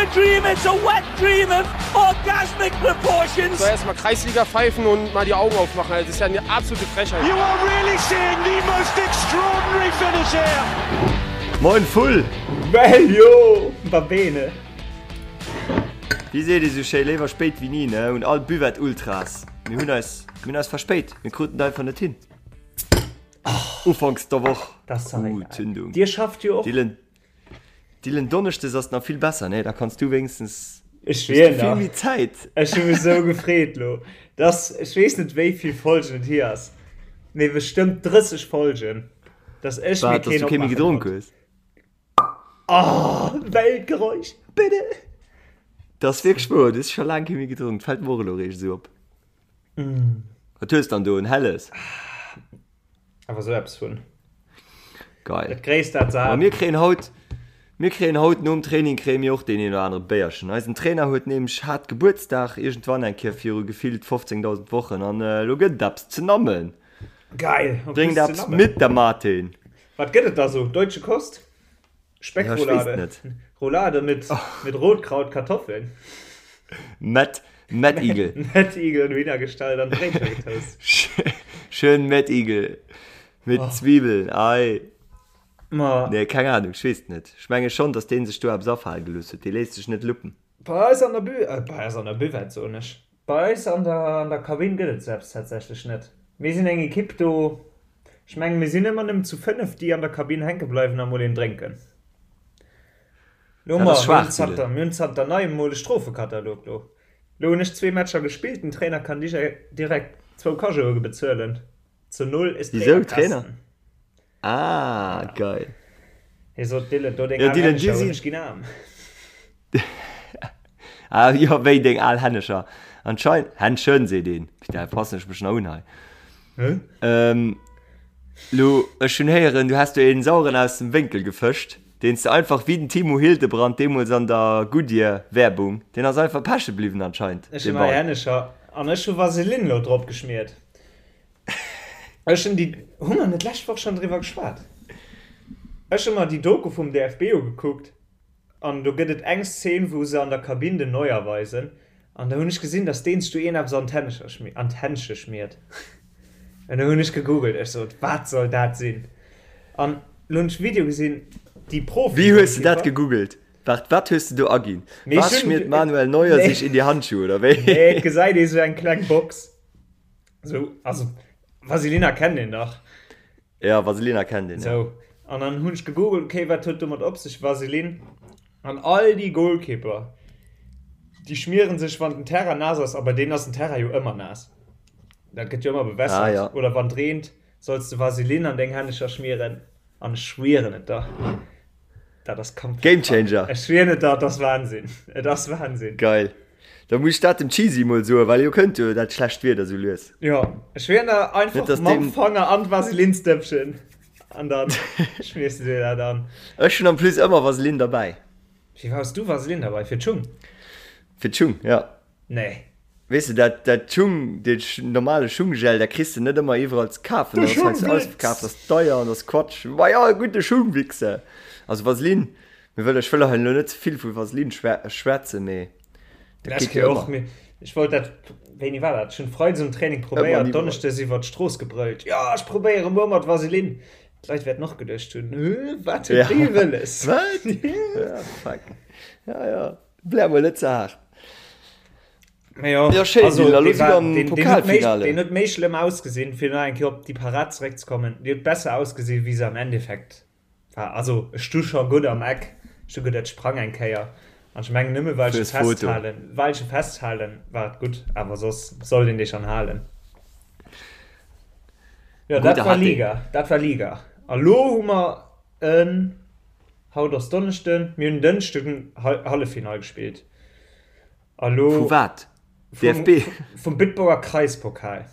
a dream, it's a wet dream of orgasmic proportions. Soll erstmal Kreisliga pfeifen und mal die Augen aufmachen. Also, das ist ja eine absolute Frechheit. You are really seeing the most extraordinary finish here. Moin Vull! Well jo, va bene. Wéi seet ee sou schéi, léiwer spéit wéi ni, ne? Un all Buvette Ultras, mir hunn eis, mir hunn eis verspéit, mir kruten et einfach net hin. Ufanks der Woch. Das ist doch Uh, egal. Zündung. Dir schafft jo och. Dylan, Dylan Donneschdes ass nach vill besser, ne? Da kanns du wéinstens Ech hues du schwier vill nach. méi Zäit. Ech hu mech sou gefreet lo. Dass, ech weess net wéi vill Folgen et hier ass, mee bestëmmt 30 Folgen, dass ech mir Wat, dass keen du kee méi opmaache gedronk konnt. hues? Oh, Weltgeräusch, bitte! Dat ass wierklech wouer, du hues scho laang kee méi gedronk, fält mer och elo eréischt esou op. Wat hues dann do, en helles? Awer sou eppes vun. Geil. Dat gréisst dat Ma Saat. mir kréien haut, mir kréien haut nom Training kréie mir och deen een oder anere Béierchen. Eisen Trainer huet nämlech hat Gebuertsdag iergendwann eng Kéier viru gefillt 15.000 Wochen an elo gëtt et eppes ze nammen. Geil, en plus Bréngt ze eppes nammen. mit, der Martin. Wat gëtt et da sou? Deutsche Kost? Speckroulade? Ja, ech weess net. Roulade mit, mit Rotkraut, Kartoffeln? Met, Mettigel. Mettigel und Wiener gestallt an Bréitcher getoast. Schön Mettigel mit Oh. Zwiebeln, ei. Ma. Nee, keng Ahnung, ech weess et net. Ech menge schonn, dass dee sech do eppes afale gelooss huet. Dee léisst sech net luppen. Bei eis an der Bü, äh, bei eis an der Buvette, soen ech. Bei eis an der, an der Kabinn gëtt et selbst tatsächlech net. Mir sinn eng Ekipp do, ech mengen, mir sinn ëmmer nëmmen zu 5, déi an der Kabinn hänke bleiwen a mol een drénken. Lo Dat mer, ass mir hunn schwaach, zanter, Dylan. mir hunn zanter neiem mol e Strofekatalog lo. Lo hunn ech zwee Matcher gespillt, den Trainer kann direkt zwou Cajoe bezuelen. Zu null ist Wisou, Trainer? Trainerkasten. Ah, geil. Hie sot, Dylan, do deng Ja, al Dylan, dir Hännecher hunn si. ech ginn aarm. Ah, jo, wéi deng al Hännecher. Anscheinend, Händchen seet een. Putain, passen ech mech nach un hei. Hä? Ähm, lo, ech hunn héieren, du häss do een Saueren aus dem Wénkel gefëscht, deen s de einfach wéi den Timo Hildebrand deemools an der Goodyear Werbung, deen ass einfach peche bliwwen anscheinend, Ech dee hunn nei Ball. Hännecher an ech hu Vaseline lo drop geschmiert. Ech hunn déi, hu mer net d'lescht Woch schonn driwwer geschwat? Ech hu mer déi Doku vum DFB ugekuckt an do gëtt et eng Szene, wou se an der Kabinn den Neuer weisen an da hunn ech gesinn, datt deen sech do een eppes an d'Hännecher, an d'Händsche schmiert. An da hunn ech gegoogelt, ech sot, wat soll dat sinn? An lo hunn ech Video gesinn, déi Wéi hues de dat Profi-Golkipper. gegoogelt? Waart, wat hues de do aginn? Mee ech Was hunn, schmiert Manuel Neuer nee, sich in die Handschuhe, oder wéi? nee, et gesäit ee sou eng kleng Box. So, also Vaselina kennt een dach. Ja, Vaselina kennt een, ja. So, an dann hunn ech gegoogelt, okay, wat huet domat op sech, Vaseline? An all déi Goalkeeper, déi schmieren sech, wann den Terrain naass ass, a bei deenen ass den Terrain jo ëmmer naass, dat gëtt jo ëmmer Ah, bewässert, ja. oder wann et reent, solls de Vaseline an deng Hännecher schmieren. An ech schwieren et der, dat ass komplett Game krank. Changer! Ech schwieren et der, et ass Wahnsinn. Et ass Wahnsinn. Geil. Da muss ech dat dem Cheesy mol soen, well elo kënnt jo dat schlecht Wieder sou lues. Jo, ech schwieren der, Net einfach dass mam deem. Fanger an d'Vaselinsdëppchen an dann schmiers de dir dat an. Ech hunn en plus ëmmer Vaseline derbäi. Fir wat hues du Vaseline derbäi? Fir d'Schung? Fir d'Schung, jo. Nee. Weess de, dat, dat Schung, dee normale Schunggel, dat kriss de net ëmmer iwwerall ze kafen. De Dat ass heiansdo Schungwix! ausverkaaft, dat ass deier an dat ass Quatsch. Ma jo, e gudde Schungwichse. Also Vaseline, mir wëll, ech wëll hei elo net ze vill vu Vaseline schwätzen, mee dat Ech geet jo och, ëmmer. mee ech wollt dat, wéini war dat? Ech hunn Freides um Training Ëmmer an probéiert, iwwerall. Donneschdes iwwer d'Strooss gebrëllt, Jo, ech probéiere muer mat Vaseline. D'Leit wäerten och geduecht hunn, Hö, wat huet Ja. dee wëlles? Wat? Ja, fuck. Ja, ja. Blär mol net ze haart. Mee jo, Ja, schéin, also, Dylan, elo dee si war, mer am deen, deen huet méi, Pokalfinale. deen huet méi schlëmm ausgesinn, fir nach eng Kéier op déi Parad zeréckzekommen, déi huet besser ausgesinn, wéi se am Endeffekt war. Also, ech stu scho gutt am Eck, ech hu gutt, et sprang eng Kéier, an ech mengen, nëmme well ech e Fürs Foto. festhalen, well ech e festhalen, war et gutt, awer soss sollt een dee schonn halen. Jo, dat Gudde war hat deen. Liga, dat war Liga. A lo hu mer en. Haut ass Donneschden, mir hunn Dënschden Halleffinall gespillt a lo. Vu wat? Vum, DFB? vum Bitburger Kreispokal.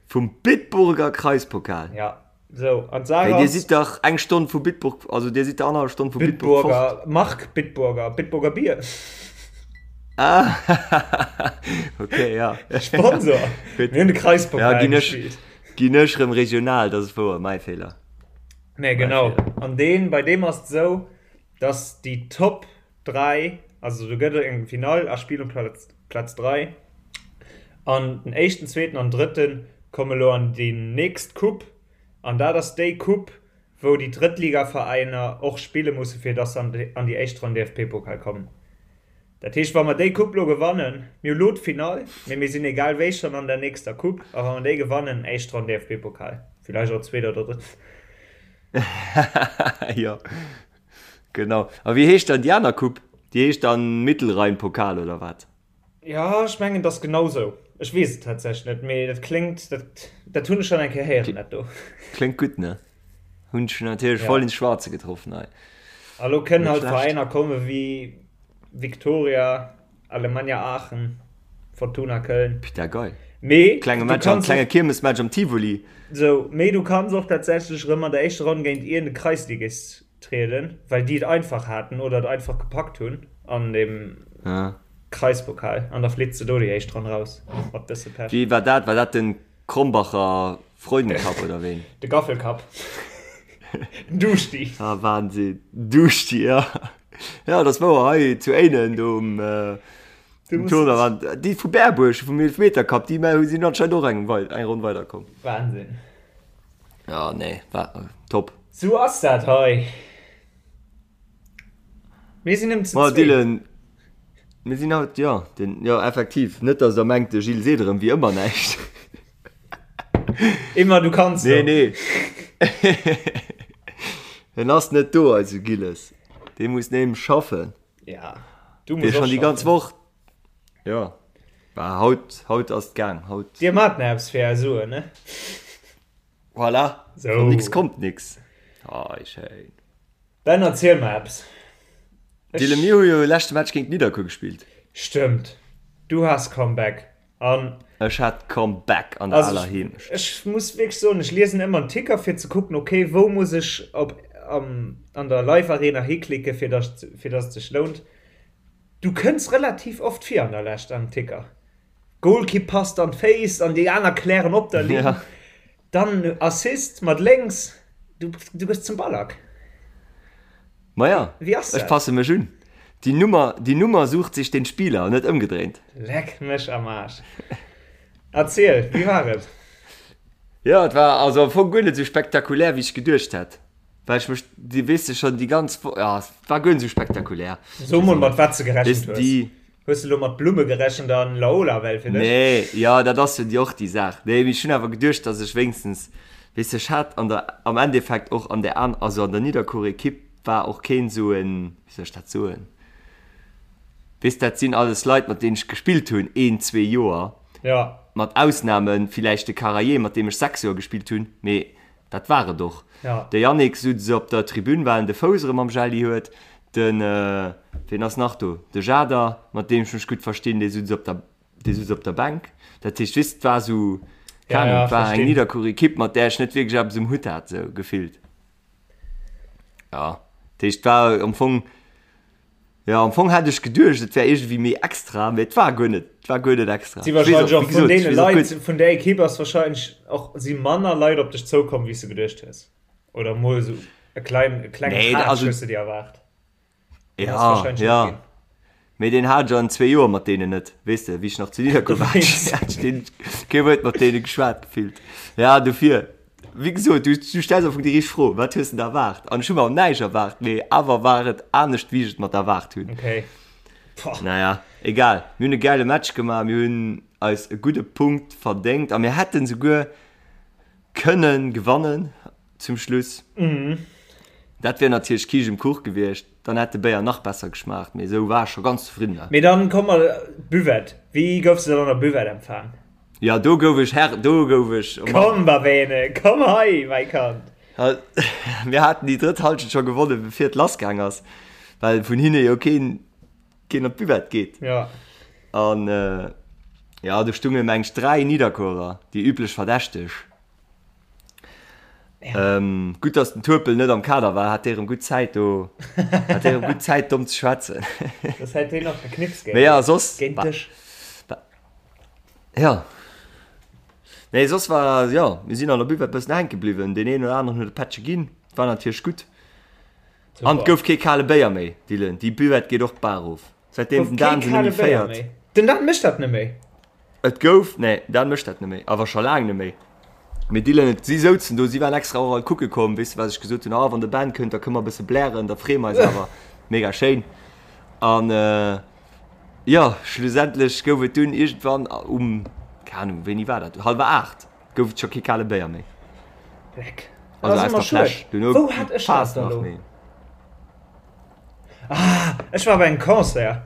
Vum Bitburger Kreispokal? Ja, sou, an d'Saach Hey, dir ass. sidd dach eng Stonn vu Bitburg, also dir sidd der annerhallef Stonn vu Bitburg fort. Bitburger, Mark Bitburger, Bitburger Bier. Ah, okay, ja. Sponsor. Gutt. Mir hunn de Kreispokal Ja, ginn ech, gespillt. ginn ech rëm regional, dat ass wouer, mäi Feeler. Nee, genau. An deen, bei deem ass et esou, dass déi Top. 3, also do gëtt et eng Finall a Spill um Platz, Platz 3. An den éischten, zweeten an drëtten komme lo an déi nächst Coupe. An dat ass déi Coupe, wou déi Drëttligaveräiner och spille musse fir dass se an déi éischt Ronn DFB-Pokal kommen. Dat heescht, wa mer déi Coupe lo gewannen, mir hu lo d'Finall, mee mir sinn egal wéi schonn an der nächster Coupe, a wa mer déi gewannen, éischt Ronn DFB-Pokal, villäicht och zweet oder drëtt. Jo, genau. A wéi heescht dann déi aner Coupe? Déi heescht dann Mittelrhein-Pokal oder wat? Jo, ech mengen, et ass genau sou. Ech weess et tatsächlech net, mee dat kléngt, dat, dat hunn ech schonn eng Kéier héieren, dat do. Kléngt gutt, ne? Hunn ech natierlech voll ins Schwarze getroffen hei. A lo kënnen halt Veräiner komme wéi Viktoria, Alemannia Aachen, Fortuna Köln. Putain, geil. Mee Klenge Match am, klenge Kiermesmatch am Tivoli. Sou, mee du kanns och tatsächlech erëm an der éischter Ronn géint iergend e Kreisligist trieden, well déi et einfach haten oder et einfach gepackt hunn an dem Kreispokal an da flitt se do déi éischt Ronn raus mat bësse Pech. Wéi war dat? War dat den Krombacher Freudencup oder ween? De Gaffelcup. Den Duschti. Ah Wahnsinn. Duschti, ja. Ja, dat ass wouer hei zu Éinen do um Tournoi waren déi vu Berbuerg vum Eelefmetercup, déi sinn anscheinend och eng Ronn weiderkomm. Wahnsinn. Ja, nee, war top. Sou ass dat hei. Mir sinn ëm ze zwee. Dylan, mir sinn haut, jo, den, jo, effektiv. Net, dass der mengt, de Gilles seet erëm wéi ëmmer näischt. Immer, du kanns Nee, nee. En ass net do, eise Gilles. Dee muss nämlech schaffen. Ja, du muss och schaffen. Dee schonn déi ganz Woch. Jo, bah, haut, haut ass et gaang, haut. Dir mat nach eppes fir är Suen, ne? Voilà, so. Von nix kommt nix. Ah, oh, schéin. Ben, erziel mer eppes. Dylan, mir hu jo leschte Match géint Nidderkuer gespillt. Stëmmt. Du has Comeback. An Ech hat Comeback an der also, aler Heemecht. Ech muss wierklech soen, ech liesen ëmmer en Ticker fir ze kucken, okay, wou muss ech op, am, an der Live-Arena hiklicke fir dass, fir dass et sech lount. Du kënns relativ oft vir an der Lescht am Ticker. Golkipp passt an d'Féiss an déi aner klären op der Linn. Ja. Dann Assist mat lénks. Du, du gëss zum Ballack. Maja, Wéi ass dat? Ech passe mech un. Die Nummer, die Nummer sucht sich den Spieler, net ëmgedréint. Leck mech am Aarsch. Erziel, wéi war et? Jo, et war also am Fong guer net esou spektakulär, wéi ech geduecht hätt. Well ech mech, déi, weess de schonn, déi ganz Wo, ja, et war guer net esou spektakulär. So mol, mat wat s de gerechent hues. Déi. Hues de lo mat Blumme gerechent an Laola well fir dech? Nee, jo, dat ass jo déi och déi Saach. Nee, mee ech hunn awer geduecht, datt ech wéinstens, weess de, ech hat an der, am Endeffekt och an där an, also an der Nidderkuer Ekipp war och keen esou en, wéi soll ech dat soen, weess, dat sinn alles Leit, mat deenen ech gespillt hunn een, zwee Joer, Ja. mat Ausname villäicht de Karaye, mat deem ech 6 Joer gespillt hunn, mee Dat war et och. De Yannick sutz op der Tribün, well en de Fouss erëm am Jelli huet. Den, ween ass nach do? De Jader, mat deem ech mech gutt verstinn, dee sutz op der, dee sutz op der Bänk. Dat heescht, weess, et war esou, keng Ahnung, et war eng Nidderkuer-Ekipp, mat där ech net wierklech eppes um Hutt hat, esou gefillt. Jo, dat heescht, et war am Fong, Jo, am Fong hat ech geduecht, et wär iergendwéi méi extra, mee et war guer net, et war guer net extra. Si wahrscheinlech och vun deene Leit, vun där Ekipp ass wahrscheinlech och, si manner Leit op dech zoukomm, wéi s de geduecht hues. Oder mol esou e klein, e klengen nee, Tratsch also, hues de dir erwaart. Ja, ja. Mee deen hat ech an zwee Joer mat deenen net, weess de, wéi ech nach zu Nidderkuer war, hat ech deen kee Wuert mat deene geschwat gefillt. Ja, dofir. Wéi gesot, du, du stells am Fong déi richteg Fro, Wat hues de da erwaart? An ech hu mer näischt erwaart, mee awer war et anescht, wéi ech et mer erwaart hunn. Okay. Boah. Naja, egal. Mir hunn e gäile Match gemaach, mir hunn eis e gudde Punkt verdéngt a mir hätten souguer kënne gewannen zum Schluss. Mhm. Dat wär natierlech Kiischt um Kuch gewiescht, dann hätt de Béier nach besser geschmaacht, mee esou war ech scho ganz zefridden. Mee dann komm mer, Buvette, wéi goufs de dann an der Buvette empfaang? Jo, do gouf ech Herr, do gouf ech, oh Mann. Komm, Babene, komm hei, mäi Kand. Mir haten déi drëtt Halschent scho gewonnen, bevir et lassgaang ass, well vun hinne jo keen, keen op d'Buvette geet. Ja. An, jo, do stunge meng ech 3 Nidderkuerer, déi üblech Verdächteg. Ja. Ähm, gutt, dass den Turpel net am Kader war, hat dee rëm gutt Zäit do, hat dee rëm gutt Zäit domm ze schwätzen. Das hätt deen nach geknipst géint, Mee ja, soss, géint dech. Ja. Nee, soss war, jo, mir sinn an der Buvette bëssen hänke bliwwen. Deen een oder aneren huet e Pättche ginn. War natierlech gutt. An et gouf kee kale Béier méi, Dylan. Déi Buvette geet och d'Baach erof, säitdeem den Dan se net méi féiert. Den Dan mécht dat net méi? Et gouf, nee, Dan mécht dat net méi, awer scho laang net méi. Mee Dylan, et, si souzen do, si waren extra och all kucke komm, weess de, wat ech gesot hunn, ah, wann de Ben kënnt, da kënne mer e bësse blären, da freeë mer eis awer. Mega schéin. An, jo, schlussendlech gouf et dunn iergendwann um, keng Ahnung, wéini war dat, hallwer 8, Gouf et scho kee kale Béier méi. Leck. Also aus der Fläsch. Duerno Wou hat ech dat da lo? Ah, ech war bei engem Concert.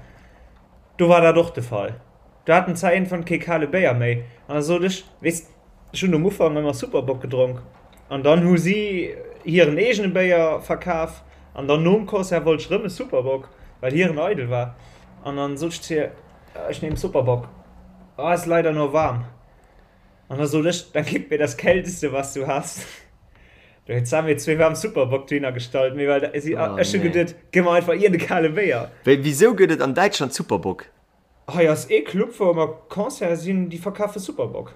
Do war dat och de Fall. Do haten zwar iergendwann kee kale Béier méi. An da sot ech, weess, ech hunn um Ufank ëmmer Super Bock gedronk. An dann hu si hiren eegene Béier verkaf. An dann nom Concert wollt ech rëm e Super Bock, well hiren eidel war. An dann sot ech zu hir, Ich nehm Super Bock. Ah, ist leider nur warm. An da sot ech, Dann gib mir das Kälteste, was du hast. Do huet d'Sam mir zwee waarm Super Bock dohinner gestallt, mee well si, oh, ech hu geduet, gi mer einfach iergend e kale Béier. Wéi, wisou gëtt et an Däitschland Super Bock? Hei ass ee Club, wou ëmmer Concerte sinn, déi verkafe Super Bock.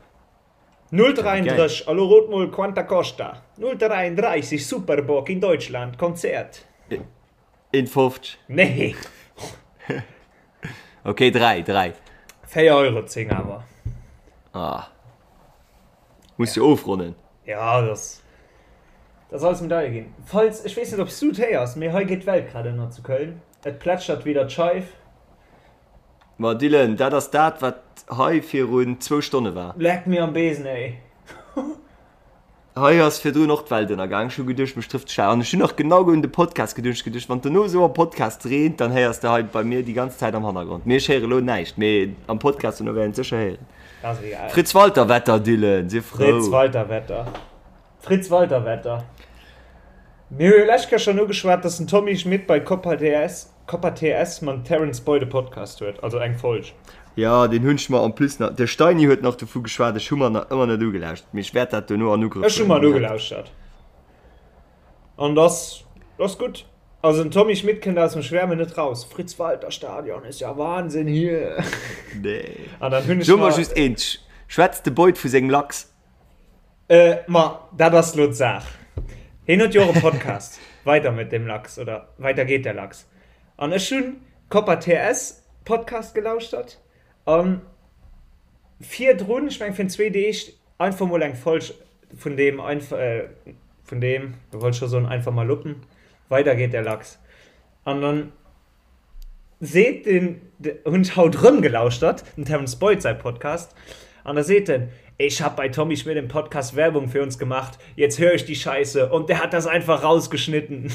0,33, a lo rot mol, quanta costa? 0,33 Super Bock in Deutschland, Konzert. 1,50. Nee. Ok, 3, 3. 4 Euro 10 awer. Ah. Muss jo ofronnen. Ja, das, das alles méi deier ginn. Falls, ech weess net, ob s du et héiers, mee hei geet d'Welt grad ënner zu Köln. Et plätschert wieder d'Scheif. Ma Dylan, dat ass dat, wat hei virun zwou Stonne war. Leck mir am Besen, ey. Hei ass virdrun och d'Welt ënnergaang. Ech hu geduecht, mech trëfft d'Schau. An ech hunn nach genau un de Podcast geduecht. Ech geduecht, wann et dono esou am Podcast reent, dann héiers de hei bei mir déi ganz Zäit am Hannergrond. Mee ech héiere elo näischt, mee am Podcast dono wäert een et sécher héieren. Ass egal. Fritz Walter Wetter, Dylan, sief frou. Fritz Walter Wetter. Fritz Walter Wetter. Mir hu jo lescht Kéier schonn ugeschwat, dass den Tommy Schmitt bei Copa TS, Copa TS mam Terence Boyd e Podcast huet, also eng Folg. Jo, deen hunn ech mer en plus nach, de Steini huet nach dovu geschwat, ech hu mer nach ëmmer net ugelauschtert, mee ech wäert dat dono an Ugrëff Ech hu mer en huelen. ugelauschtert an dass ass gutt. Also den Tommy Schmitt kënnt aus dem Schwärmen net raus. Fritz Walter Stadion ist ja Wahnsinn hier. Nee. An dann hunn ech So mer just eent, schwätzt de Boyd vu sengem Lachs? Ma dat ass lo d'Saach. Hien huet jo och e Podcast, Weiter mit dem Lachs oder Weiter geht der Lachs. An ech hunn Copa TS Podcast gelauschtert an virdrun, ech meng virun zwee Deeg, einfach mol eng Folg vun deem, vun deem, do wollt ech scho soen einfach mal luppen, Weiter geht der Lachs. An dann seet den, hunn ech haut rëm gelauschtert, dem Terence Boyd säi Podcast, an da seet en, Ich hab bei Tommy Schmidt im Podcast Werbung für uns gemacht, jetzt hör ich die Scheiße und der hat das einfach rausgeschnitten.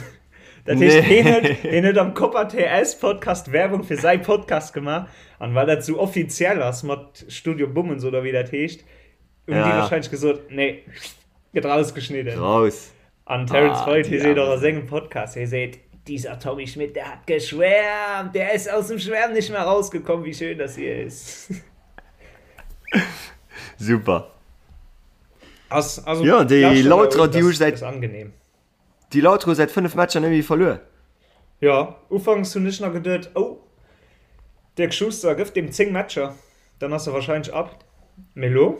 Dat heescht, hien huet, hien huet am Copa TS Podcast Werbung fir säi Podcast gemaach, an well dat sou offiziell ass mat Studio Bummens oder wéi dat heescht, hunn déi wahrscheinlech gesot, nee, gëtt rausgeschnidden. Raus. An Terence Boyd, hie seet och a sengem Podcast, hie seet, Dieser Tommy Schmidt, der hat geschwärmt, der ist aus dem Schwärmen nicht mehr rausgekommen, wie schön das hier ist. Super. Ass, also, Ja, déi Lauterer, déi hu säit, angenehm. déi Lauterer hu säit 5 Matcher net méi verluer. Ja, ufanks hunn ech nach geduet, oh, Dirk Schuster gëff deem 10 Matcher, dann ass e wahrscheinlech ab. Mee lo?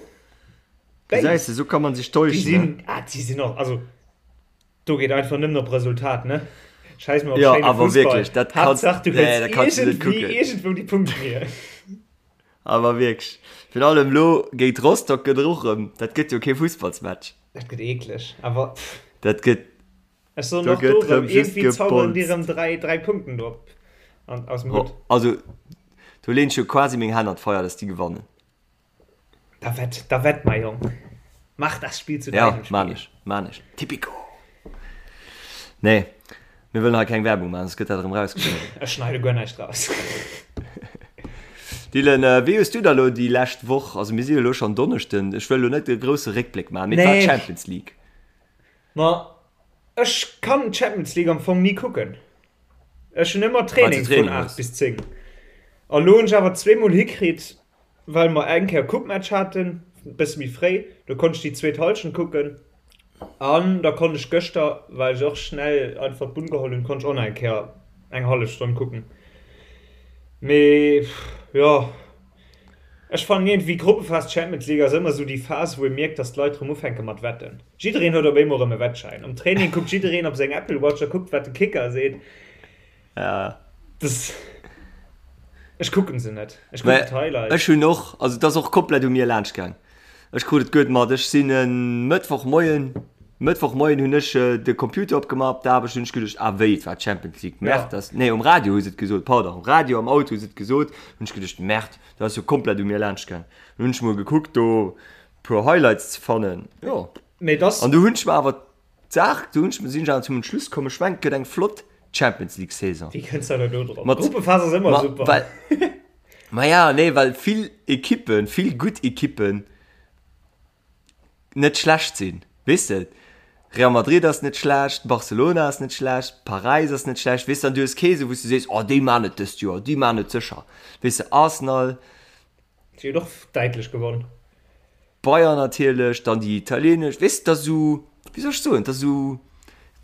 Gesäis de, sou kann man sech täuschen. Déi sinn, ah, déi sinn och, also do geet einfach nëmmen op Resultat, ne? Scheiss mol op ja, schéine awer Fussball. Wierklech, dat kannst, Haaptsaach du nee, dat kannst du net kucken. Iergendwou déi Punkten hier. Awer wierklech, virun allem lo géint Rostock gëtt och erëm, dat gëtt jo kee Fussballsmatch. Dat gëtt eekleg, awer pff. Dat gëtt, Ech soen och do erëm, iergendwéi zauberen déi erëm 3, 3 Punkten do op, an, aus dem Hutt. Also, do leen ech jo quasi meng Hänn an d'Feier, dass déi gewannen. Da wett, da wett, mein Jong. Mach das Spiel zu deinem Spiel. Ja, man ech, man ech. Tipico! Nee, mir wëllen hei keng Werbung maachen, soss gëtt dat erëm rausgeschnidden. Ech schneide guer näischt raus. Dylan, wéi hues du da lo déi lescht Woch, also mir si jo elo schonn Donneschden, ech wëll elo net e grousse Réckbléck maachen, mee et war d'Champions League. Ma ech kann d'Champions League am Fong ni kucken. Ech hunn ëmmer Training vun 8 bis 10. A lo hunn ech awer zweemol hikritt, well mer eng Kéier Coupe-Match haten, e bësse méi fréi, do konnt ech déi zweet Hallschent kucken. An da konnt ech gëschter, well ech och schnell einfach d'Bunn geholl hunn, konnt ech och nach eng Kéier eng hallef Stonn kucken. Mee jo. Ech fannen iergendwéi Gruppephas Champions League ass ëmmer esou déi Phas wou ee mierkt dass d'Leit rëm ufänke mat wetten. Jiddereen huet op eemol rëm e Wettschäin. Am Training kuckt jiddereen op seng Apple Watch a kuckt wat de Kicker seet. Ja. Das, ech kucken se net. Ech kucken d'Highlights. Ech hunn och, also et ass och komplett u mir laanscht gaang. Ech krut et guer mat. Ech sinn e Mëttwochmoien, Mëttwochmoien hunn ech de Computer opgemaach op der Aarbecht, hunn ech geduecht, ah wéi, et war d'Champions League, Merde, dat ass, nee um Radio hu se et gesot, pardon, um Radio am Auto hu se et gesot, hunn ech geduecht, Merde, dat ass jo komplett u mir laanscht gaang. Dann hunn ech mol gekuckt do puer Highlights ze fannen, jo. Mee dass. An du hunn ech mer awer D'Saach, do hunn ech, sinn ech awer zum Entschluss komm, ech mengen, et gëtt eng flott Champions League Saison. Wéi kënns de do drop? Mat, D'Gruppephas ass ëmmer ma, super. well, ma ja, nee, well vill Ekippen, vill gutt Ekippen net schlecht sinn, weess de? Real Madrid ass net schlecht, Barcelona ass net schlecht, Paräis ass net schlecht, weess de? An du hues kee sou, wou s du sees, oh déi man et dëst Joer, déi man et sécher, weess de? Arsenal. Si hunn och däitlech gewonn. Bayern natierlech, dann déi italienesch, weess de, dat ass esou, wéi soll ech soen, dat ass esou,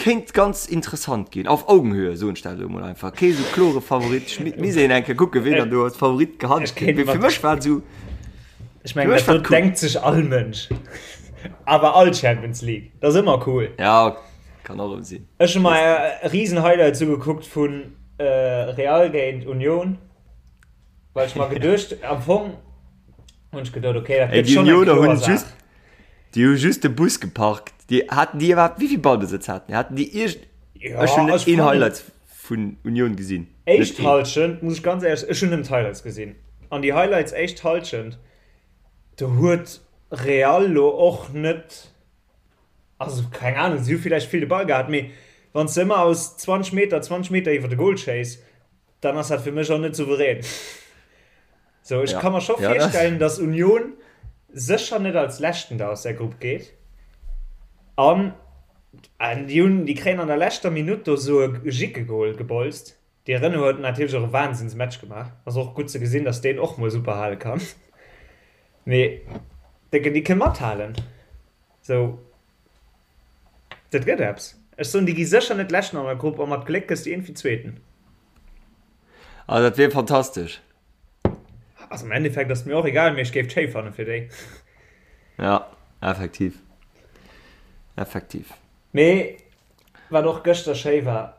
kéint ganz interessant ginn, auf Augenhöhe, soen ech dat elo mol einfach, kee sou klore Favorit, ech misst een eng Kéier kucken, ween dann do als Favorit gehandelt gëtt, mee fir mech war et esou, Ech mengen, dat do denkt sech all Mënsch, awer all Champions League, dat ass ëmmer cool. Ja, kann och erëm sinn. Ech hu mer e risen Highlight ugekuckt vu Real géint Union, well ech mer geduecht, am Fong, Hunn ech geduet, okay, dat Ey, gëtt déi schonn eng Unioner kloer hunn Saach. just, déi hu just de Bus geparkt. Déi haten déi iwwerhaapt, wéi vill Ballbesëtz haten déi? Haten déi iergend, Ja, ech hunn net ech een fannen, Highlight vun Union gesinn. Net éischt een. Hallschent, muss ech ganz éierlech, ech hunn nëmmen d'Highlights gesinn. An déi Highlights éischt Hallschent, do huet Real lo och net, also keng Ahnung, si hu villäicht vill de Ball gehat, mee wann s de ëmmer aus 20 Meter, 20 Meter iwwer de Goal schéiss, dann ass dat fir mech och net souverän. Sou, ech Ja. ka mer scho Ja, dat. virstellen, dass Union sécher net als Leschten da aus der Grupp geet. An an déi hunn, déi kréien an der leschter Minutt do sou e Jickegol gebolzt. Dee Renaud huet natierlech och e Wahnsinnsmatch gemaach. Ass och gutt ze gesinn, dass deen och mol super hale kann. Mee déi kënne mathalen. Sou, dat gëtt eppes. Ech soen, déi gi sécher net Leschten an der Grupp a mat Gléck gëss du iergendwéi Zweeten. Ah, dat wier fantastesch. Also am Endeffekt ass et mir och egal, mee ech géif et schéi fanne fir déi. Ja, effektiv. Effektiv. Mee wat och gëschter schéi war,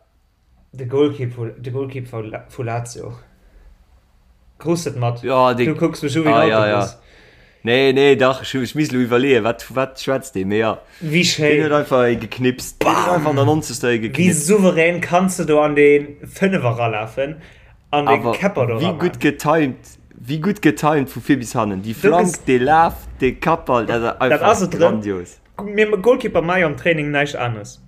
De Goalkeep vu, de Goalkeep vu, vu Lazio. Krus et mat? Ja, dee, Du kucks mech u wéi ah, en ja, ja. Autobus. Nee, nee, dach, ech, ech misst elo iwwerleeën, wat, vu wat schwätzt dee, mee ja. Wéi Deen schéin. huet einfach ee geknipst. Deen huet einfach an der 90. ee Wéi geknipst. souverän kanns de do an dee Fënnefer ralafen an dee Awer Käpper do wéi raman. gutt getimed, wéi gutt getimed vu vir bis hannen. Déi Do Flank, ges, dee Laf, dee Kappball, dat ass dat einfach ass et erëm. grandios. Mir Goalkeeper maache jo am Training näischt aneres.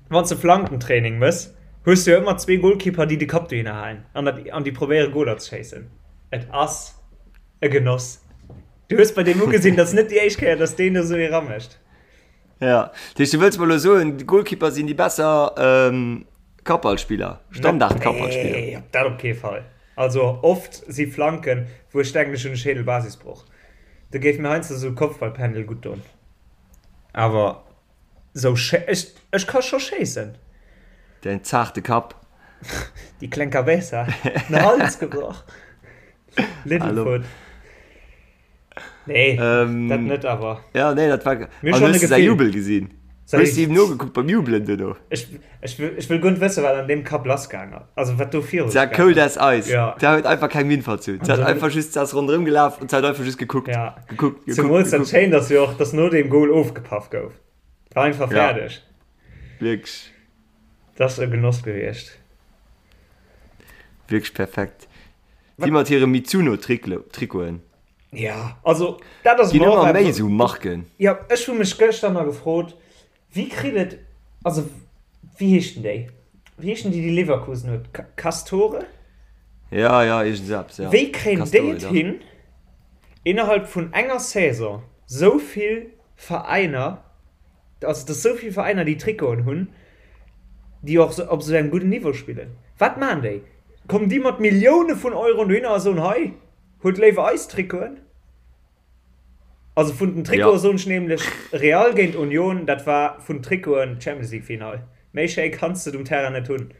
Wann s de Flankentraining mëss, hues du jo ëmmer zwee Goalkeeper, déi de Kapp dohinner halen an dat an déi probéiere Goler ze schéissen. Et ass e Genoss. Du hues bei deem ugesinn, dat ass net déi éischt Kéier, datt deen do esou ee ramécht. Ja, dat heescht, du wëlls mer elo soen, d'Goalkeeper sinn déi besser Kappballspiller, Standard-Kappballspiller? Nee, dat op kee Fall. Also oft si Flanken, wou ech denken, ech hunn e Schädelbasisbroch. Do géif mir heiansdo esou e Kopfballpendel gutt doen. Awer sou ech, ech ka scho schéissen. Däin zaarte Kapp. Déi kleng Cabeza. Den Hals gebrach. Little Foot. Nee, ähm, dat net awer. Ja, nee, dat war. Mir schon e Gefill. Jubel gesinn. Hues du ihm nogekuckt beim Jubelen duerno? Ech, ech, ech wëll guer net wëssen, wat an deem Kapp lassgaang ass. Also wat do viru Se war cold as ice. Ja. Se huet einfach keng Minn verzunn. Se hat einfach just, se ass ronderëm gelaf und se hat einfach just gekuckt. Ja. Gekuckt, gekuckt, Zemools dat gekuckt. Schéint ass jo och, dass no deem Goal ofgepaff gouf. War einfach Ja. fäerdeg. Wierklech. Dat ass e Genoss gewiescht. Wierklech perfekt. Déi mat hire Mizuno-Trikoten. Ja, also dat ass Ginn mer och ëmmer méi eppes. esou Marken. Ja, ech hu mech gëschter nach gefrot, wéi kritt et, also wéi heeschten déi? Wéi heeschen déi, déi Leverkusen huet? Castore? Ja, ja, iergend esou eppes, ja. Wéi kréien déi Castore, et dach. hin, innerhalb vun enger Saison sou vill Veräiner, also dass sou vill Veräiner déi Trikoten hunn, déi och op esou engem gudden Niveau spillen? Wat maachen déi? Kommen déi mat Millioune vun Euroen dohinner a soen, hei, Huet léiwer eis Trikoten. Also vun den Trikoten soen ech nämlech Real géint Union, dat war vun Trikoten d'Champions League Final. Méi schéi kanns de et um Terrain net hunn.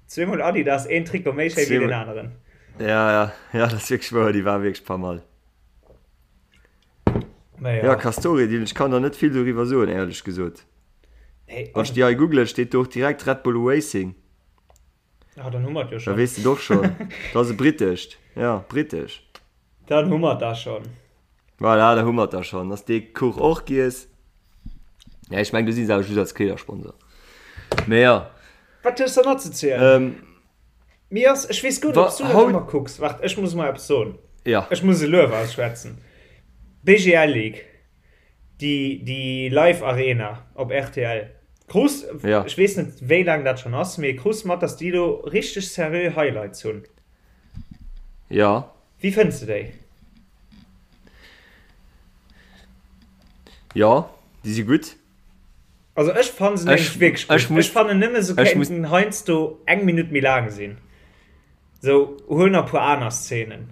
Zweemol Adidas, een Trikot méi schéi wéi deen aneren. Ja, ja, ja, dat ass wierklech wouer, déi war wierklech pas mal. Mä ja. Ja, Castore, Dylan, ech kann der net vill doriwwer soen, éierlech gesot. Nee, Wann ech déi hei googlen, steet do och direkt Red Bull Racing. Ah, dann hu mer et jo Da schonn. weess de et och schonn. Dat ass e britescht. Ja, britesch. Dann hu mer et da schonn. Voilà, da hu mer et da schonn. Ass dee Kuch och giess. Ja, ech meng, do si se awer just als Kleedersponsor. Mee ja. Wat hues de nach ze zielen? Ähm, Mir ass, ech weess guer net, ob s du dat ëmmer kucks. Waart, ech muss mol eppes soen. Ja. Ech muss e Luef ausschwätzen. BGL League, déi, déi Live Arena op rtl. Krus, ja. ech weess net, wéi laang dat schonn ass, mee krus mat, dass déi do richteg seriö Highlights hunn. Ja. Wéi fënns de déi? Jo, déi si gutt. Also ech fannen se nämlech wierklech gutt. Ech, ech fannen nëmme se kéinten heiansdo eng Minutt méi laang sinn. Sou huel nach e puer aner Szenen.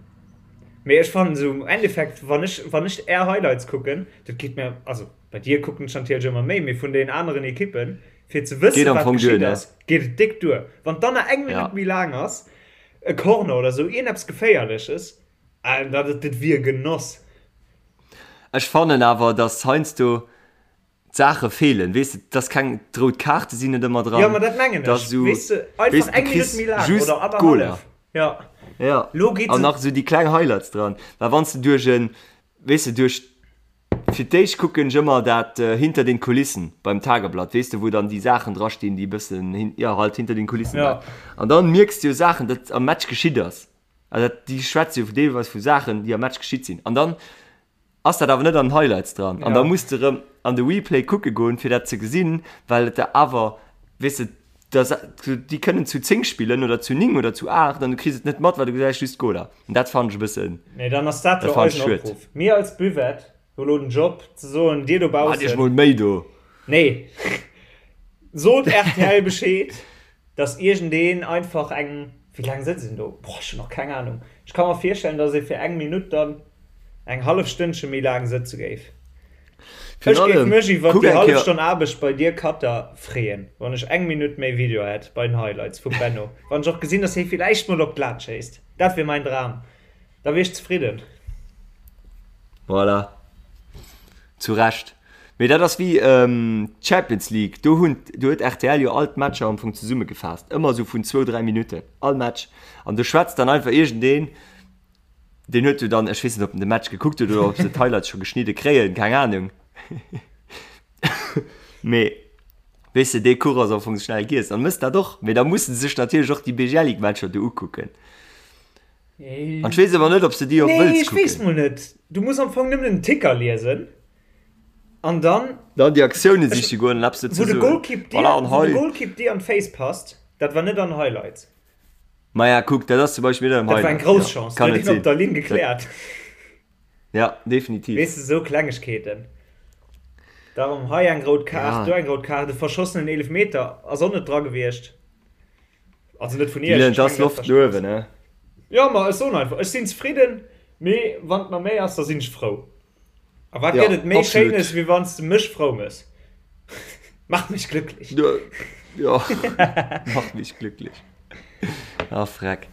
Mee ech fannen se um Endeffekt, wann ech, wann ech är Highlights kucken, dat geet mir, also bei dir kucken ech natierlech ëmmer méi, mee vun den aneren Ekippen, fir ze wëssen, wat geschitt ass, geet et déck duer. Wann dann nach eng Minutt méi laang ass, e Corner oder sou, iergendeppes Geféierleches, dat, dat wier Genoss. Ech fannen awer, dass heiansdo d'Saache feelen, weess de, dass keng, d'rout Kaarte sinn net ëmmer dran. Jo, ma dat mengen ech, weess de, einfach eng Minutt méi laang oder annerhallef. Ja, ja. An nach esou déi kleng Highlights dran, well wann s de duerch en, weess de, duerch, fir d'éischt kucken ech ëmmer dat Hinter den Kulissen beim Tageblatt, weess de, wou dann déi Saachen drastinn, déi e bëssen, jo, halt hinter den Kulissen waren. An dann mierks de jo Saachen, dat am Match geschitt ass. Also dat, déi schwätze jo deelweis vu Saachen, déi am Match geschitt sinn. An dann ass dat awer net an den Highlights dran. An da muss de rëm an de Replay kucke goen, fir dat ze gesinn, well et der awer, weess de, da déi kënnen zu 10 spillen oder zu 9 oder zu 8 an du kriss et net mat, well du gesäis just d'Goler. An dat fannen ech e bëssen, Nee, dann ass dat dat jo fannen ech eisen schued. Opruff. Mir als Buvette hu lo den Job ze soen, dir Maacht iech dobaussen, mol Méi do. Nee, sot rtl Bescheed. Dass iergendeen einfach eng, wéi laang sëtzt een do? Boah, ech hunn och keng Ahnung. Ech ka mer virstellen, dass ee fir eng Minutt dann eng hallef Stënnche méi laang sëtze géif. Ech géif mech iwwert déi hallef Stonn Aarbecht bei dir Cutter freeën, wann ech eng Minutt méi Video hätt bei den Highlights vum Benno. Wann ech och gesinn, dass hie villäicht mol op d'Lat schéisst. Dat wier mäin Dram. Da wier ech zefridden. Voilà. Zu Recht. Mee dat ass wéi d'Champions League, do hunn, do huet rtl jo all d'Matcher am Fong zesummegefaasst, ëmmer esou vun zwou, dräi Minutten all Match. An do schwätzt dann einfach iergendeen, deen huet jo dann, ech weess net, ob en de Match gekuckt huet oder ob se d'Highlights scho geschnidde kréien, keng Anung. Mee weess de, dee Kuch ass am Fong schnell giess. An mëss dat och. Mee da musse se sech natierlech och déi BGL-League-Matcher do ukucken. An ech weess awer net, ob s de déi och Nee, wëlls ech weess kucken. mol net. Du muss am Fong nëmmen den Ticker liesen an dann. Dann déi Aktioune siche goen an eppes dozou Wou de soen. Golkipp dir, Voilà, an wou de hei. Golkipp dir an d'Féiss passt, dat war net an Highlights. Maja, kuck, dat ass zum Beispill net am Dat war eng Highlight. grouss Ja, Chance, kann do huet net een op sinn. der Linn Dat, gekläert. ja, definitiv. Weess de, sou Klengegkeeten. Darum hei eng rout Kaart, Ja. do eng rout Kaart, e verschossenen Eelefmeter ass och net dra gewiescht. Also net vun Iech. Dylan, Ech et ass mengen, dat Loft no uewen, ne? Jo, ma ech soen einfach, ech sinn zefridden, mee wann et nach méi ass, da sinn ech frou. A wat Ja, gëtt et méi absolut. Schéines, wéi wann s de mech frou mëss? Mach mich glücklich. Jo, jo, mach mich glücklich. Ah, freck.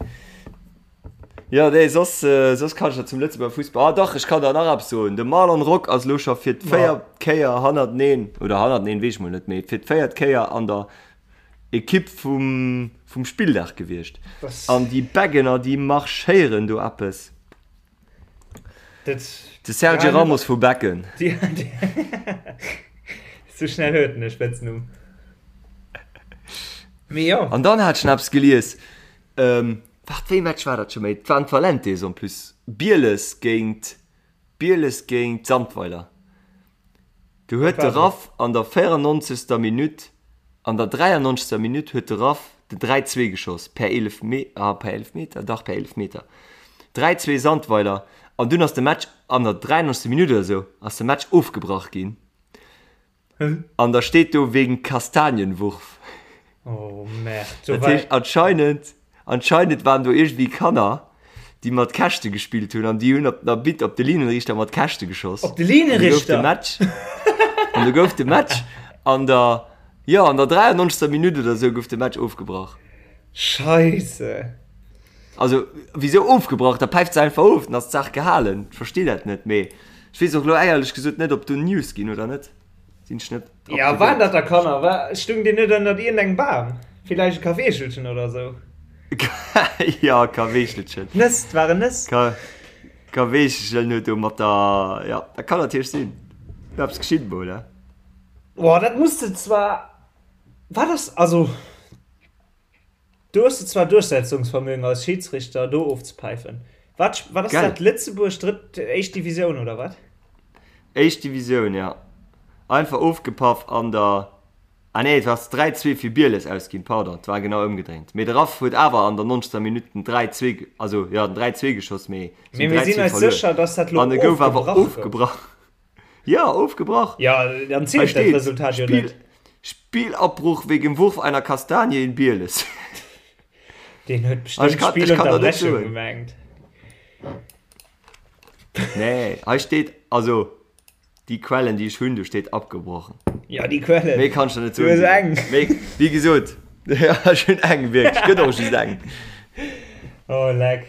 Jo, nee, soss, soss kann ech der zum Lëtzebuerger Fussball, ah dach, ech kann der nach eppes soen, De Marlon Rock ass elo scho fir d'véiert Kéier hannerteneen, oder hannerteneen, weess ech mol net, mee fir d'véiert Kéier an der Ekipp vum vum Spilldag gewiescht. An déi Beggener, déi marschéieren do eppes. Dat, De Sergio ja, Ramos vu Becken. Die, die, sou schnell huet en e Spëtznumm. Mee jo. An dann hat ech nach eppes gelies. Ähm, waart, wéi Match war dat scho méi? Et waren d'Valentes en plus. Bieles géint, Bieles géint Sandweiler. Du huet de Raff an der 94. Minutt, an der 93. Minutt huet de Raff den 3, 2 geschoss per Eelefme, ah per Eelefmeter, dach per Eelefmeter. 3, 2 Sandweiler an dunn ass de Match an der 93. Minutt oder sou ass de Match ofgebrach ginn. An da steet do wegen Kastanienwurf. Oh merde. Do Dat war heescht anscheinend, anscheinend waren do iergendwéi Kanner, déi mat Käschte gespillt hunn an déi hunn op den Arbitter, op de Linienrichter mat Käschte geschoss. Op de An du gouf de Linienrichter? Match, an du gouf de Match an der, jo, an der 93. Minutt oder sou gouf de Match ofgebrach. Scheisse. Also, wisou ofgebrach? Da päift se einfach of, dann ass d'Saach gehalen. Ech versti dat net, mee. Ech weess och elo éierlech gesot net, ob do News ginn oder net. Sinn ech net up Ja, to waren date. dat da Kanner? War, stung déi net ënnert iergendengem Bam? Villäicht e Kaweechelchen oder sou? Ja, Kaweechelchen. Nëss, 't waren Nëss. Ka, Kaweechelchen huet do mat der, ja, dat kann natierlech sinn. Eppes geschitt mol, he? Boah, dat muss de zwar, wat ass, also. Do hues de zwar Duerchsetzungsvermögen als Schiedsrichter do ofzepäifen. Wat wat ass Gell? dat Lëtzebuerg drëtt éischt Divisioun oder wat? Éischt Divisioun, ja. Einfach ofgepaff an der, ah nee, et ass 3, 2 fir Bieles ausginn, pardon, et war genau ëmgedréint. Mee de Raff huet awer an der 90. Minutt den 3, 2, also jo, den 3, 2 geschoss, mee se Mee hunn mir 3, sinn 2 eis verluer. sécher, dass dat lo An e gouf awer ofgebrach gouf. ofgebrach. Ja, ofgebrach. Ja, dann zielt dat Resultat jo net. Spielabbruch wegen Wurf einer Kastanie in Bieles. Deen huet bestimmt Spielunterbrechung gemengt. Nee, hei steet, also déi Quellen déi ech hunn, do steet abgebrochen. Ja, déi Quellen. Méi kann ech der net soen. Du hues eng. Méi, wéi gesot, ja, ech hunn eng, wierklech, gëtt och just eng. Oh, leck.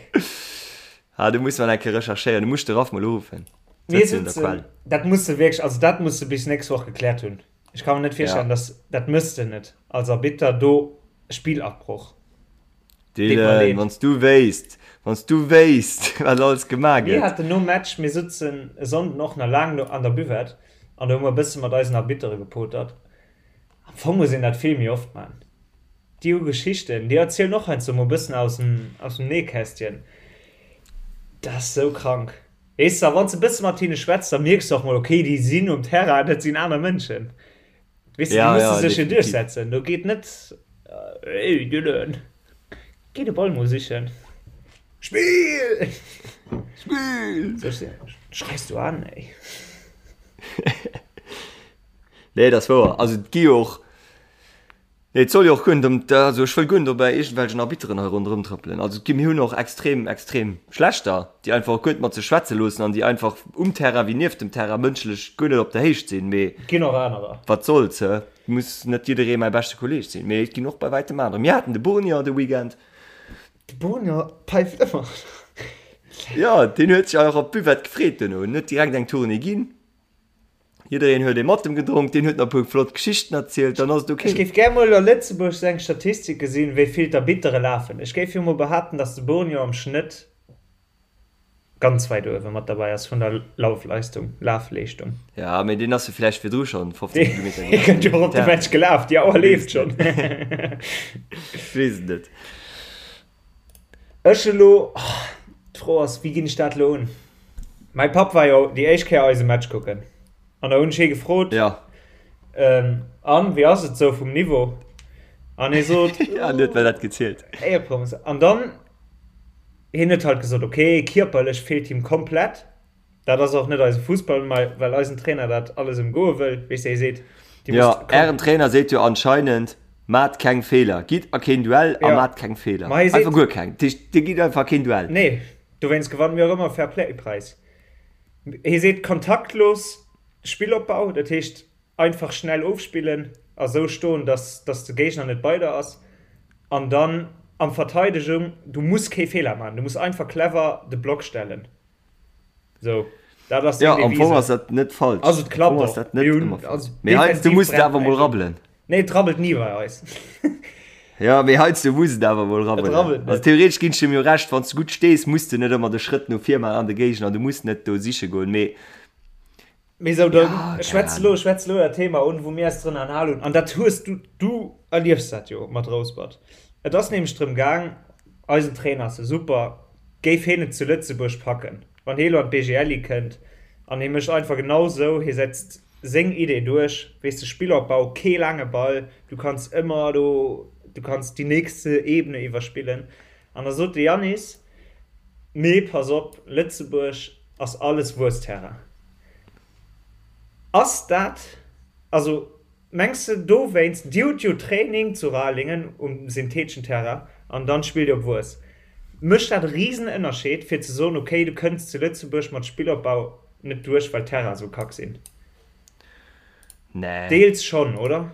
Ah, do muss mer eng Kéier recherchéieren, do muss ech de Ralph mol uruffen. Mir sitzen, dat muss de wierklech, also dat muss de bis nächst Woch gekläert hunn. Ech ka mir net virstellen, ja. dass dat mëss de net als Arbitter do Spielabbruch. Dylan, wann s du wéisst, wann s du wéisst, wat alles gemaach gëtt. Mir haten nom Match, mir sutzen e Sonnden och nach laang an der Buvette an do hu mer e bësse mat eisen Arbittere gepotert. Am Fong muss een dat vill méi oft man. Déi hu Geschichten, déi erzielen och heiansdo mol e bëssen aus dem, aus dem Nähkästchen. Dat ass sou krank. Weess de, a wann s de e bësse mat hinne schwätz, da mierks de och mol, okay, déi sinn um Terrain, dat sinn aner Mënschen. Weess de, déi musse sech jo duerchsetzen. Do geet net, Ey Dylan, géi de Ball mol sichen. Spill! Spill! Schreis du an, ey. Nee, dat ass wouer. Also et gi jo och. Nee, et soll jo och guer net ëm, also ech wëll guer net op iergendwelchen Arbitteren hei ronderëm trëppelen. Also et gi, mir hunn och extrem, extrem schlechter, déi einfach och guer net mat sech schwätze loossen an déi einfach um Terrain wéi nieft dem Terrain mënschlech guer net op der Héicht sinn. Mee Et ginn och anerer. wat soll's, hä? Et muss net jidderee mäi beschte Kolleeg sinn, mee et ginn och bei wäitem anerer. Mir haten de Bournier de Weekend. De Bournier päift ëmmer. Jo, deen huet sech och op d'Buvette gefreet duerno. En huet direkt eng Tournée ginn. Jiddereen huet ee mat em gedronk, deen huet nach e puer flott Geschichten erzielt, dann ass et ok. Ech géif gär mol a Lëtzebuerg sou eng Statistik gesinn, wéi vill d'Arbittere lafen. Ech géif jo mol behaapten, dass de Bournier am Schnëtt ganz wäit uewe mat derbäi ass vun der Laufleistung, Lafleeschtung. Ja, mee deen ass jo vläicht virdru schonn 15 Kilometer gelaf. Dee kënnt jo och op de Match gelaf, déi Auer leeft schonn. Ech weess et net. Ech elo, d'Fro ass, wéi ginn ech dat elo un? Mäi Papp war jo déi éischt Kéier eise Match kucken an da hunn ech hie gefrot, Ja. An, wéi ass et sou vum Niveau? An hie sot, Ja, en huet mer dat gezielt. Éierproms. An dann, hien huet halt gesot, okay, kierperlech feelt him komplett. Dat ass och net eise Fussball, well eisen Trainer dat alles ëmgoe wëll, weess de, hie seet, Dir musst. Jo, ären Trainer seet jo anscheinend, Maacht keng Feeler, gitt a keen Duell a maacht keng Feeler. Einfach guer keng. Dat heescht, Dir gitt einfach a keen Duell. Nee, dowéinst gewanne mir och ëmmer Fair-Play-Präis. Hie seet, kontaktlos Spillopbau, dat heescht, einfach schnell ofspillen a sou stoen, dass dass de Géigner net bei der ass an dann am Verteidegung, du muss kee Feeler maachen, du muss einfach clever de Block stellen. So, dat ass ja, am Fong ass dat net falsch. Also et klappt och. Dat net ëmmer falsch. Mee heiansdo muss et awer mol rabbelen. Nee, et rabbelt ni bei eis. Ja, mee heiansdo muss et awer mol rabbelen. Et rabbelt net. Also theoretesch ginn ech dem jo Recht, wann s du gutt stees, muss de net ëmmer de Schrëtt no vir maachen an de Géigner, du muss net do siche goen, mee Mee sou, da schwätz elo, schwätz elo dat Thema un, wou mir eis drënner anhal hunn. An dat hues du, du erliefs dat jo mat Rouspert. Et ass nämlech drëm gaang, eisen Trainer ass e super, géif hien et zu Lëtzebuerg packen, wann hie elo an d'BGLI kënnt an hie mécht einfach genau sou, hie setzt seng Idee duerch, weess de, Spillopbau, kee laange Ball, du kanns ëmmer do, du kanns déi nächste Ebene iwwerspillen. An da sot de Yannis, Nee, pass op, Lëtzebuerg ass alles Wuessterrain. Ass dat, also mengs de dowéinst, Dir hutt jo Training zu Ralingen um syntheteschen Terrain an dann spillt Dir op Wues. Mécht dat e Risenënnerscheed fir ze soen, okay, du kënns zu Lëtzebuerg mat Spillopbau net duerch, well d'Terrainen esou kack sinn? Nee. Deels schonn, oder?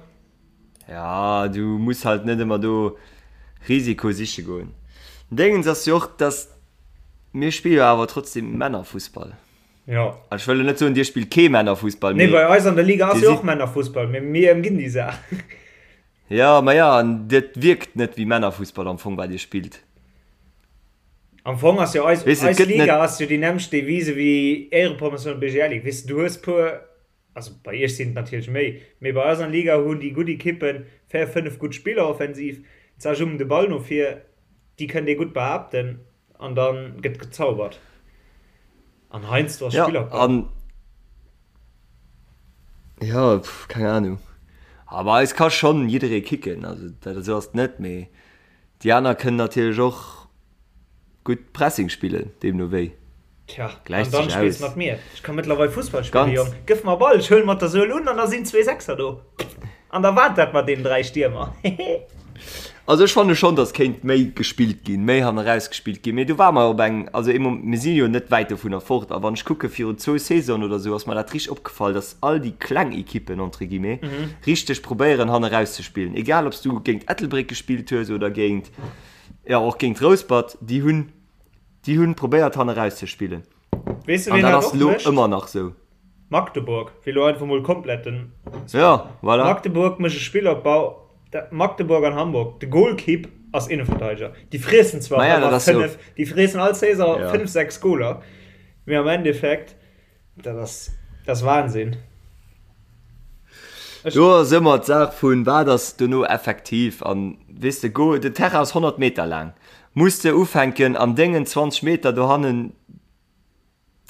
Ja, du muss halt net ëmmer do Risiko siche goen. Déngens ass jo och, dass mir spille jo awer trotzdem Männerfussball. Jo. Ech wëll net soen, dir spillt kee Männerfussball, mee. Nee, bei eis an der Liga ass jo och Männerfussball, mee mir ëmginn déi Saach. Jo, ma jo, an dat wierkt net wéi Männerfussball am Fong, wat dir spillt. Am Fong ass jo eis, weess, eis Liga ass jo déi nämmlecht Devise wéi Éierepromotioun an BGL Ligue. Weess de, du hues puer, also bei iech sinn et natierlech méi, mee bei eis an der Liga hunn déi gutt Ekippen 4, 5 gutt Spiller offensiv, zerjummen de Ball no vir, déi kënnt ee gutt behaapten an da gëtt gezaubert. An heiansdo ass Spillerpech. Ja, an ja, pff, keng Ahnung. Aber eis ka schonn jidderee kicken, also dat esou ass et net, mee Déi aner kënnen natierlech och gutt Pressing spillen, deemno wéi. Tja, an dann spills mat mir. Ech ka mëttlerweil Fussball spillen, Jong. Gëff mer Ball, ech huelen mat der Suel un an da sinn zwee Sechser do. An da waart dat mat deenen 3 Stiermer. Hehe. Also ech fanne schonn, datt kéint méi gespillt ginn, méi hanneraus gespillt ginn. Mee do ware mer op eng, also ee Moment, mir si jo net wäit dovunner fort. A wann ech kucke virun zwou Saisonen oder esou, ass mer dat richteg opgefall, datt all déi kleng Ekippen, entre guillemets, richteg probéieren hanneraus ze spillen. Egal ob s du géint Ettelbréck gespillt hues oder géint, jo och géint Rouspert, déi hunn, déi hunn probéiert hanneraus ze spillen. Weess de ween dat och mécht? Ëmmer nach sou. Magdeburg, fir elo einfach mol komplett den. Ja, voilà. Magdeburg mécht e Spillopbau, Magdeburg an Hamburg, de Golkipp ass Innenverteidiger. Déi friessen zwar ëmmer 5, déi friessen all Saison 5, 6 Goler, mee am Endeffekt. Dat ass, dat ass Wahnsinn. Ech Do ass ëmmer d'Saach vun, wat ass dono effektiv an, weess de, go, den Terrain ass 100 Meter laang, muss de ufänken an dengen 20 Meter dohannen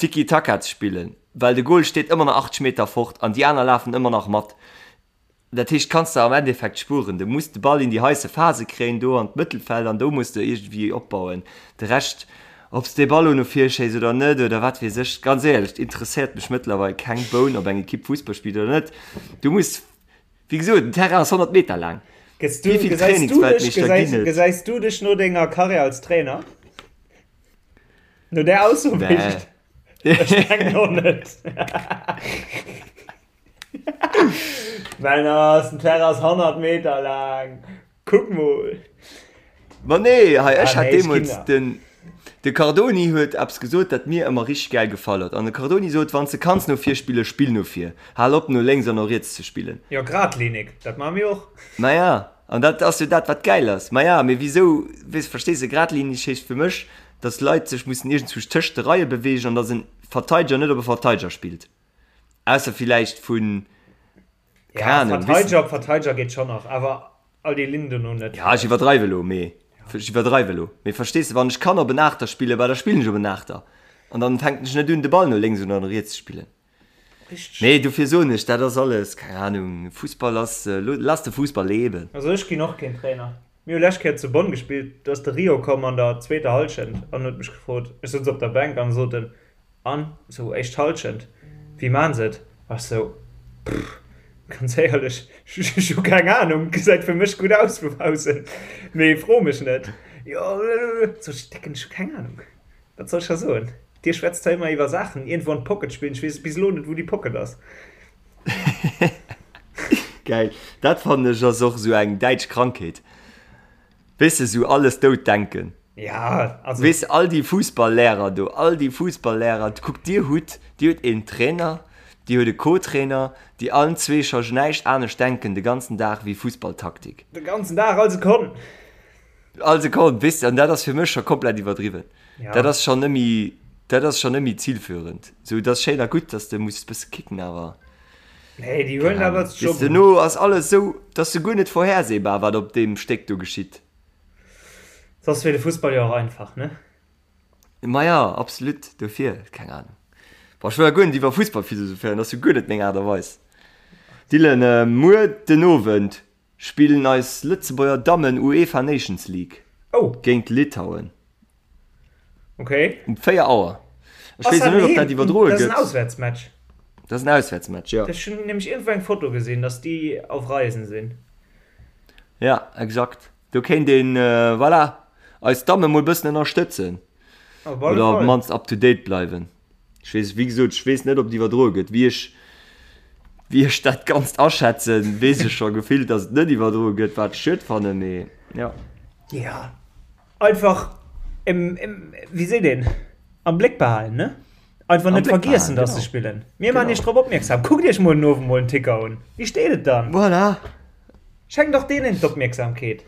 Tiki-Taka ze spillen, well de Goal steet ëmmer nach 80 Meter fort an déi aner lafen ëmmer nach mat. Dat heescht, kanns de am Endeffekt spueren. Du muss de Ball in déi heisse Phase kréien, do an d'Mëttelfeld, an do muss de iergendwéi opbauen. De Rescht, ob s de Ball elo no vir schéiss oder net oder wat weess ech, ganz éierlech, et interesséiert mech mëttlerweil keng Boun, ob eng Ekipp Fussball spillt oder net. Du muss, wéi gesot, den Terrain ass 100 Meter laang. Wéi vill Trainingsweltmeeschter ginn et? Gesäis du dech no denger Karriär als Trainer? No där Ausso? Nee. Ech mengen och net. Männer, den Terrain ass 100 Meter laang. Kuck mol. Ma nee, hei ech hat deemools den de Cardoni huet eppes gesot, dat mir ëmmer richteg gäil gefall huet. An de Cardoni sot, wann s de kanns no vir spillen, spill no vir. Hal op no lénks an no riets ze spillen. Jo, gradlinig, dat maache mir och. Maja, an dat ass jo dat, wat gäil ass. Maja, mee wisou, weess, verstees de, gradlinig heescht fir mech, dass Leit sech mussen iergendzwousch tëscht de Reie beweegen an dass en Verteideger net op e Verteideger spillt. Ausser villäicht vun, keng Ahnung, Verteideger op Verteideger geet schon nach, awer all déi Linnen dono net. Ja, ech iwwerdreiwe lo, mee ech iwwerdreiwe lo, mee verstees de, wann ech kann op en Aachter spillen, bah da spillen ech op en Aachter an dann fänken ech net un de Ball no lénks oder no riets ze spillen. Richteg. Nee, dofir soen ech, dat ass alles, keng Ahnung, Fussball ass, lass de Fussball leben. Also ech ginn och keen Trainer. Mir hu lescht Kéier zu Bonn gespillt, do ass de Rio komm an der zweeter Hallschent an huet mech gefrot, ech souz op der Bänk an sot en, An sou éischt Halschent, wéi maan se et? Ech sou, Pff, ganz éierlech, ech hu keng Ahnung, gesäit fir mech gutt aus vu baussen, mee fro mech net. Jo, sou ech, Décken, ech hu keng Ahnung, wat soll ech der soen? Dir schwätzt zwar ëmmer iwwer Saachen, iergendwou an d'Pocket spillen, ech weess bis elo net, wou déi Pocket ass. Gäil, dat fannen ech ass och sou eng däitsch Krankheet. Weess de, sou alles dout denken. Ja, also. Weess de, all déi Fussballlehrer do, all déi Fussballlehrer, kuckt, dir hutt, dir hutt een Trainer, dir hutt e Co-Trainer, déi allen zwee scho näischt anescht denken de ganzen Dag wéi Fussballtaktik. De ganzen Dag, all Sekonn. All Sekonn, weess de, an dat ass fir mech scho komplett iwwerdriwwen. Ja. Dat ass schonn nëmmi, dat ass schonn nëmmi zilführend. Sou, dat ass schéin a gutt, dass de muss e bësse kicken, awer. Nee, déi huelen dat als Job un. Duerno ass alles esou, et ass souguer net vorhersehbar, wat op deem Stéck do geschitt. Soss wier de Fussball jo och einfach, ne? Maja, absolut, dofir, keng Ahnung. Boah, ech wëll ja guer net iwwer Fussball philosophéieren, dat ass jo guer net meng Aart a Weis. Dylan, muer den Owend spillen eis Lëtzebuerger Dammen UEFA Nations League Oh. géint Litauen. Okay. Um 4 Auer. Ech weess net, ob dat iwwerdroe gëtt. Dat ass en Auswäertsmatch. Dat ass en Auswäertsmatch, jo. Ech hunn nämlech iergendwou eng Foto gesinn, datt déi auf Reisen sinn. Ja, exakt. Do kéint een, voilà, eis Damme mol bëssen ënnerstëtzen. Op alle Oder op Fall. d'mannst up to date bleiwen. Ech weess, wéi gesot, ech weess net, ob et iwwerdroe gëtt. Wéi ech, wéi ech dat Ganzt aschätzen, weess ech scho gefillt, datt et net iwwerdroe gëtt, wat ech schued fannen, mee jo. Ja. Einfach im, im, wéi seet een, am Bléck behalen, ne? Einfach net vergiessen, dass se spillen. Mir maachen iech drop opmierksam. Kuckt iech muer den Owend mol den Ticker un. Wéi steet et dann? Voilà. Schenkt och deenen d'Opmierksamkeet.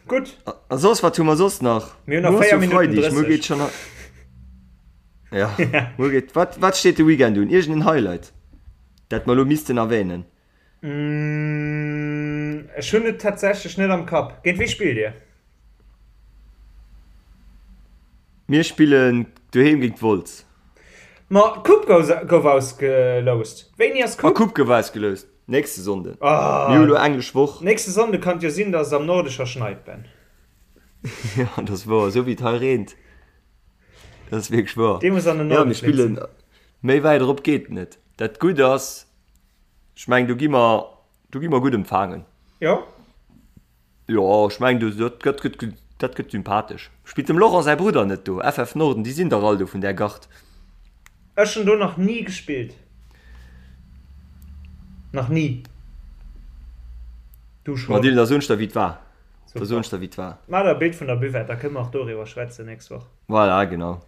Gutt. A soss, wat hu mer soss nach? Mir hunn nach 4 Minutten 30. Muer geet schonn. Ja, muer geet. Wat, wat steet de Weekend un? Iergend en Highlight, dat mer elo missten erwänen? Ech hunn et tatsächlech net am Kapp. Géint wie spillt Dir? Mir spillen doheem géint Wolz. Ma d'Coupe gouf ausgeloust. Wéini ass d'Coupe? D'Coupe gouf ausgeloust. Nächste Sonnden. Mir hu lo englesch Woch. Nächste Sonnde kann et jo sinn, dass et am Norde scho schneit, Ben. Jo, dat ass wouer. Esou wéi et hei reent. Dat ass wierklech wouer. Dee muss an den Norden Jo, mir spillen. Méi wäit erop geet et net. Dat Gutt ass, ech mengen, do gi mer, do gi mer gutt empfaangen. Jo. Jo, ech mengen, do, dat gëtt, gëtt, dat gëtt sympathesch. Spillt dem Laurent säi Brudder net do? FF Norden, déi sinn dach all do vun där Gard. Ech hunn do nach ni gespillt. Nach ni. Du schonn? Ma Dylan, da soen ech der, wéi et war. Da soen ech der, wéi et war. Maach der e Bild vun der Buvette, da kënne mer och doriwwer schwätzen nächst Woch. Voilà, genau.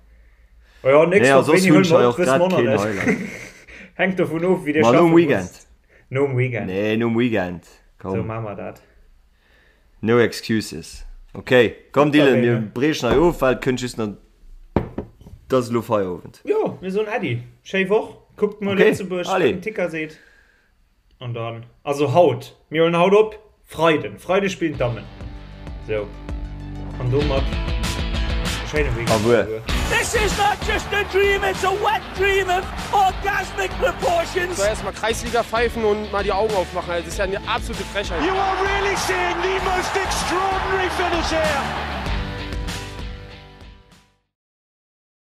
Oh ja, nächst Nee, Woch, soss wéini hunn huele ech mer hei op, och wësse grad mer och nach keen net. Highlight. Hänkt dovun of, wéi dir Ma nom schaffe Weekend. musst. Nom Weekend. Nee, nom Weekend. Sou Komm. maache mer dat. No excuses. Ok, komm Dylan, mir briechen hei of, well et kënnt just nach, et ass elo Feierowend. Jo, mir soen Äddi, schéi Woch, kuckt muer Lëtzebuerg, wat den Ticker seet. An dann, also haut, mir huelen haut op, Freiden, Freide spillen d'Dammen. Sou, an domat e schéine Weekend alleguer. This is not just a dream, it's a wet dream of orgasmic proportions. Soll erstmal Kreisliga pfeifen und mal die Augen aufmachen, also das ist ja eine absolute Frechheit. You are really seeing the most extraordinary finish here.